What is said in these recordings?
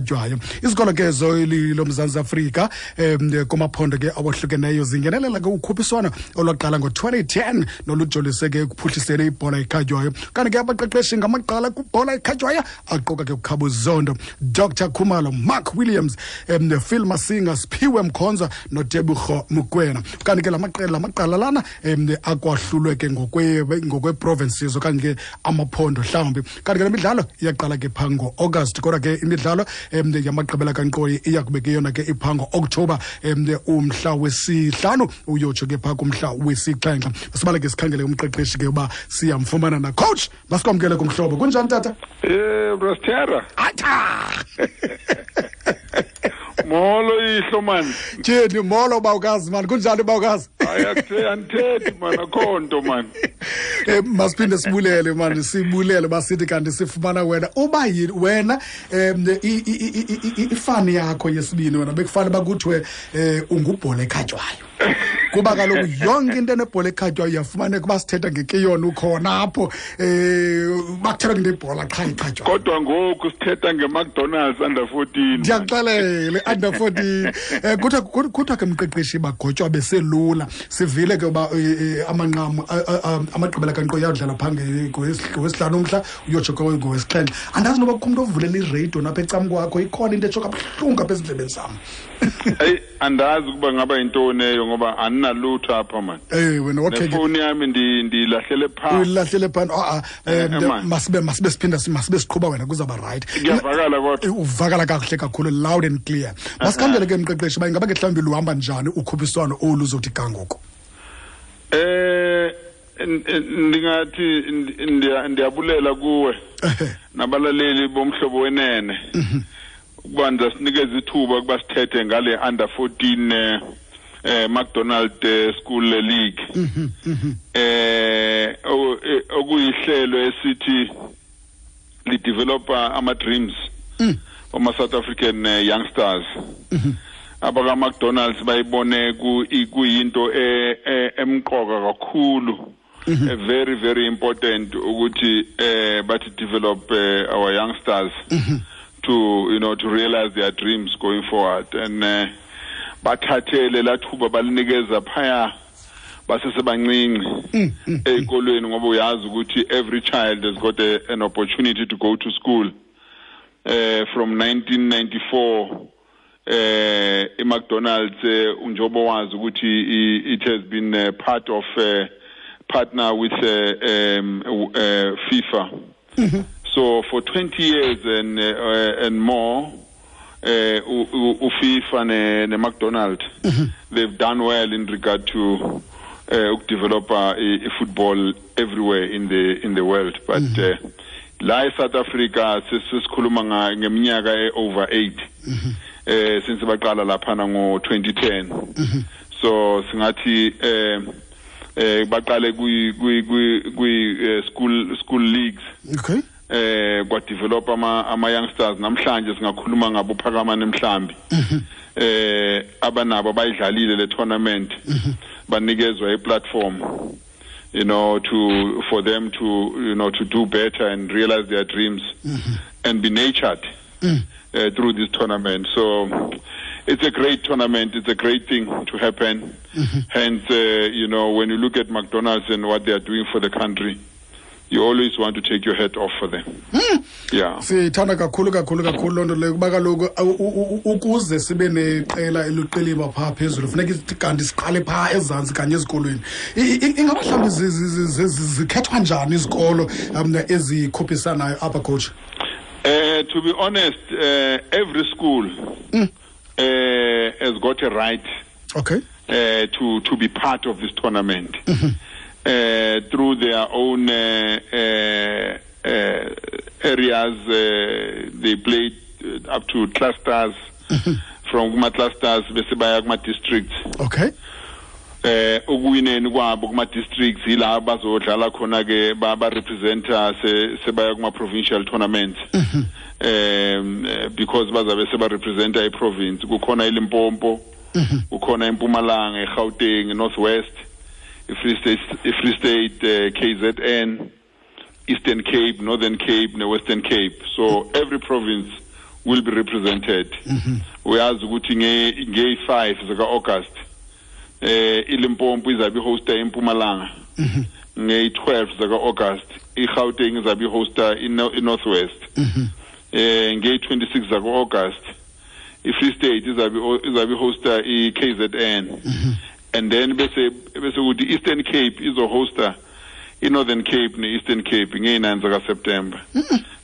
Jwayo izikolo ke zoli loMzantsi Afrika kumaphondo ke awohlukeneyo zingenelela ke ukhuphiswano olwaqala ngo-2010 nolujolise ke ekuphuhliseni ibhola ekhatywayo. Kanti ke abaqeqeshi ngamaqala kwibhola ekhatywayo aquka ke uKhabo Zondo, Dr Khumalo, Mark Williams, Phil Masinga, Siphiwe Mkhonza noTebogo Mokoena. Kanti ke la maqela lamaqala lana akwahlulwe ke ngokwe-provinces okanye ke amaphondo mhlawumbi. Kanti ke le midlalo iyaqala ke phaa ngo-August, kodwa ke imidlalo yamagqibela kankqoyi iya kube ke yona ke iphaa ngo-Oktoba, umhla 5 uyotsho ke phaa kumhla 7. Masibale ke sikhangele umqeqeshi ke uba siyamfumana na. Coach, masikwamkele kumhlobo. Kunjani tata? Brastera. Atha! Molo ihlo man. Tyhini, molo bawukazi man. Kunjani bawukazi? Hayi, andithethi man, akho nto man. Masiphinde sibulele man, sibulele basithi kanti sifumana wena. Uba yini wena, ifani yakho yesibini wena bekufanele bakuthiwe ungubhola ekhatywayo. Kuba kaloku yonke into enebhola ekhatywayo iyafumaneka uba sithetha ngekeyona ukhona apho, bakuthetha ngento ebhola qha ikhatywayo. Kodwa ngoku sithetha ngeMcDonald's under 14. Ndiyakuxelela, under 14. Kuthiwa ke mqeqeshi bagotywa beselula. Sivile ke uba amanqamu, amagqibela kankqoyi ayodlala phaa ngowesihlanu umhla, uyotsho ke ngowesixhenxe. Andazi noba kukho umntu ovulela iradio napha ecam kwakho, ikhona into etsho kabuhlungu apha ezindlebeni zam. Eyi, andazi ukuba ngaba yintoni eyo ngoba andinalutho apha man. Wena, okay ke. Nefowuni yami ndiyilahlele phaa. Uyilahlele phaa. Man. Masibe siphinda, masibe siqhuba wena, kuzawuba right. Kuyavakala kodwa. Uvakala kakuhle kakhulu, loud and clear. Masikhangele ke mqeqeshi uba ingaba ke mhlawumbi luhamba njani ukhuphiswano olu uzothi ga ngoku. Ndingathi ndiyabulela kuwe nabalaleli bomhlobo wenene. Ukuba ndizasinikeza ithuba ukuba sithethe ngale under 14 McDonald School League. Okuyihlelo esithi lidevelopa ama dreams ama South African youngsters. Abaka McDonald's bayibone kuyinto emqoka kakhulu. Very, very important ukuthi bathi develop our youngsters to realize their dreams going forward. And bathathele lathuba balinikeza phaya basesebancinci ezikolweni, ngoba uyazi ukuthi every child has got an opportunity to go to school. From 1994, iMcDonald's, njengoba wazi ukuthi it has been a part of partner with FIFA. So for 20 years and more, uFIFA ne McDonald, they've done well in regard to develop a football everywhere in the world. But la e South Africa sesikhuluma ngeminyaka e over 8. Since baqala laphana ngo 2010. So singathi baqale kwi school leagues. Kwa develop ama youngsters. Namhlanje singakhuluma ngabo Phakamani Mhlambi. Abanabo bayidlalile le tournament. Banikezwa i platform, for them to do better and realize their dreams and be nurtured through this tournament. So it's a great tournament. It's a great thing to happen. Hence, when you look at McDonald's and what they are doing for the country, you always want to take your hat off for them. Sithanda kakhulu, kakhulu, kakhulu loo nto leyo, kuba kaloku, ukuze sibe neqela eluqiliba phaa phezulu, funeka kanti siqale phaa ezantsi kanye ezikolweni. Ingaba mhlawumbi zikhethwa njani izikolo ezikhuphisanayo apha, coach? To be honest, every school has got a right to be part of this tournament. Through their own areas, they play up to clusters. From kuma clusters bese baya kuma districts. Ukuwineni kwabo kuma districts ila bazodlala khona ke ba representer sebaya kuma provincial tournaments. Because bazabe seba representer i province, kukhona iLimpopo, kukhona iMpumalanga, iGauteng, North West, iFree State, iFree State, KZN, Eastern Cape, Northern Cape, ne Western Cape. So every province will be represented. Uyazi ukuthi nge-5 zika-August iLimpopo izabe ihosta iMpumalanga. Nge-12 zaka-August iGauteng izabe ihosta iNorth West. Nge-26 zaka-August iFree State izabe ihosta i-KZN. And then bese ukuthi Eastern Cape izohosta i-Northern Cape ne-Eastern Cape nge-9 zaka-September.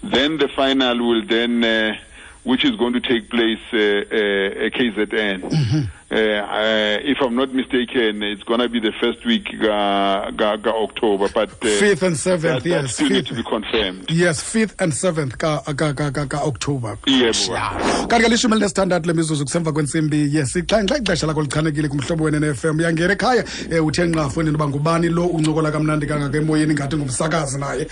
Then the final will then which is going to take place KZN. If I'm not mistaken, it's going to be the first week ga October, but 5th and 7th, yes, still need to be confirmed. Yes, 5th and 7th ka October. Yebo. Kanti ke 16 lemizuzu kusemva kwentsimbi yesixhenxe, ixesha lakho lichanekile kumhlobo wena FM. Uyangena ekhaya, uthe nqa fondini uba ngubani lo uncokola kamnandi kangaka emoyeni ngathi ngumsakazi naye,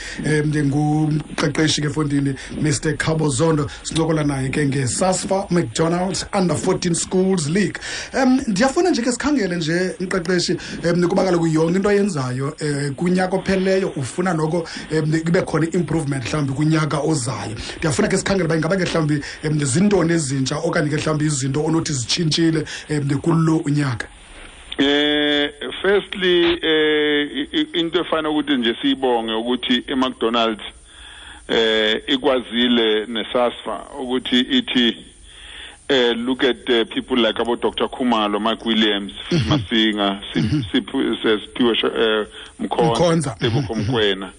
ngumqeqeshi ke fondini Mr Khabo Zondo. Sincokola naye ke nge-SASFA McDonald's Under 14 Schools League. Ndiyafuna nje ke sikhangele nje mqeqeshi, kuba kaloku yonke into oyenzayo kunyaka opheleyo ufuna noko kube khona i-improvement mhlawumbi kunyaka ozayo. Ndiyafuna ke sikhangele uba ingaba ke mhlawumbi zintoni ezintsha okanye ke mhlawumbi izinto onothi zitshintshile kulo unyaka. Firstly, into efana ukuthi nje siyibonge ukuthi iMcDonald's ikwazile neSASFA ukuthi ithi look at people like about Dr. Khumalo, Mike Williams, Masinga, Siphiwe Mkhonza, Tebogo Mokoena,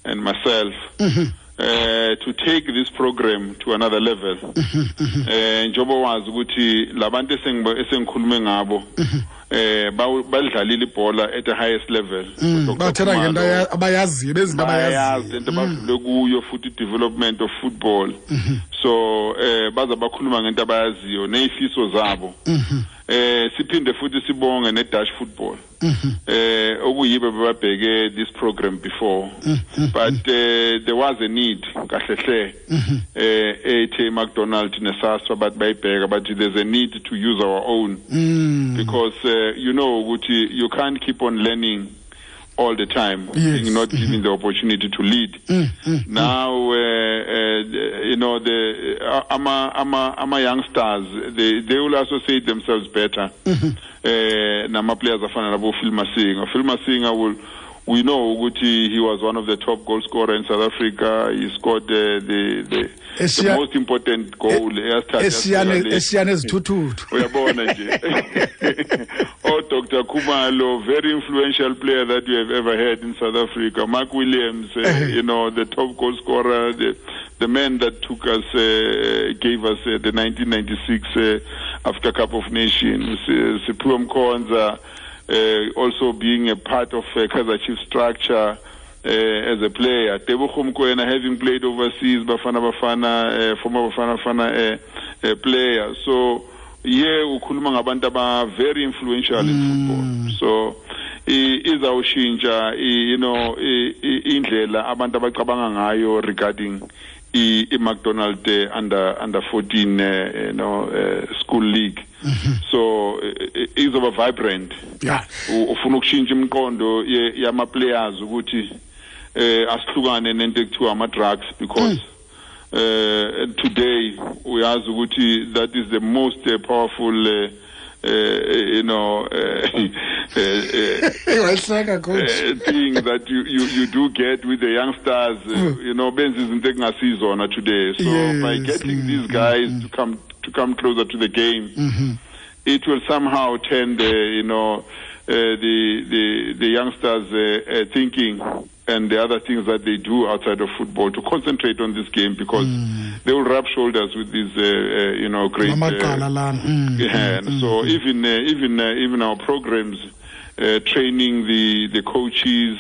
and myself, to take this program to another level. Njengoba wazi ukuthi labantu esengikhulume ngabo badlalile ibhola at the highest level. Bathetha ngento abayaziyo, bezinto abayaziyo, into abadlule kuyo futhi development of football. So baza bakhuluma ngento abayaziyo nezifiso zabo. Siphinde futhi sibonge ne-Dutch football. Okuyibo babheke this program before, but there was a need kahle hle ethe McDonald neSASFA but bayibheka, but there's a need to use our own because you know ukuthi you can't keep on learning all the time, yes. Being not given the opportunity to lead. Now, you know, the ama youngsters, they will associate themselves better. Nama players afana nabo Phil Masinga. Phil Masinga will, we know ukuthi he was one of the top goal scorer in South Africa. He scored the most important goal. Uyabona nje. Oh, Dr. Khumalo, very influential player that we have ever had in South Africa. Mark Williams, you know, the top goal scorer, the man that took us, gave us the 1996 Africa Cup of Nations. Siphiwe Mkhonza, also being a part of Kaizer Chiefs structure as a player. Tebogo Mokoena, having played overseas, Bafana Bafana, former Bafana Bafana player. So, yeah, ukhuluma ngabantu aba very influential in football. So, izawushintsha, you know, indlela abantu abacabanga ngayo regarding i-McDonald under 14 you know, school league. So izoba vibrant. Yeah. Ufuna ukushintsha imiqondo yama players ukuthi asihlukane nento ekuthiwa ama drugs, because today uyazi ukuthi that is the most powerful you know, thing that you do get with the youngsters, you know, benza izinto ekungasizona today. So yes, by getting these guys to come closer to the game, it will somehow turn the, you know, the youngsters thinking and the other things that they do outside of football to concentrate on this game, because they will rub shoulders with these, you know, great. So even our programs, training the coaches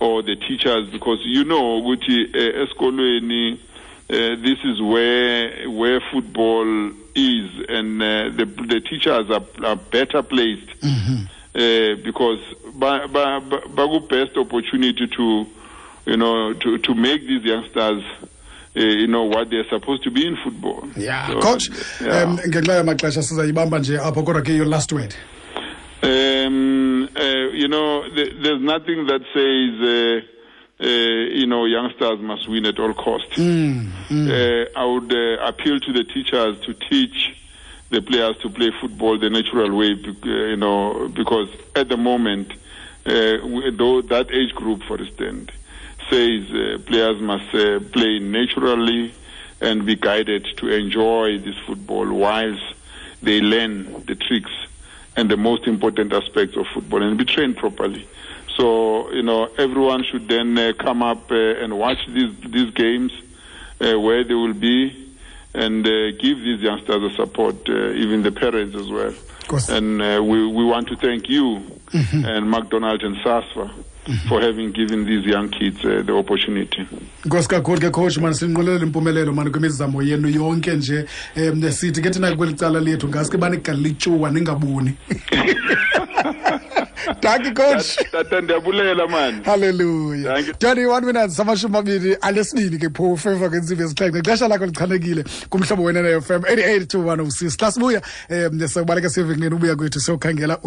or the teachers, because you know, ukuthi esikolweni, this is where football is, and the teachers are better placed. Because baku best opportunity to, you know, to make these youngsters, you know, what they're supposed to be in football. Yeah, so, coach. Yeah. Ngenxa yamaxesha sizayibamba nje apho, kodwa ke your last word. You know, there's nothing that says Youngsters must win at all costs. I would appeal to the teachers to teach the players to play football the natural way, because at the moment, though that age group, for instance, says players must play naturally and be guided to enjoy this football whilst they learn the tricks and the most important aspects of football and be trained properly. So, everyone should then come up and watch these games where they will be, and give these youngsters the support, even the parents as well. And we want to thank you and McDonald and SASFA for having given these young kids the opportunity. Nkosi kakhulu ke coach, man, sinqwenelele impumelelo mani kwimizamo yenu yonke nje. Sithi ke thina kweli cala lethu ngaske banigalele ityuwa ningaboni. Thank you, coach. Tata, ndiyabulela, man. Hallelujah. Thank you. 21 minutes 29 ke phofu emva kwentsimbi yesixhenxe. Ixesha lakho lichanekile kumhlobo wena FM 88 to 106. Xa sibuya, siyobaleka siye evenkileni, ubuya kwethu siyokhangela.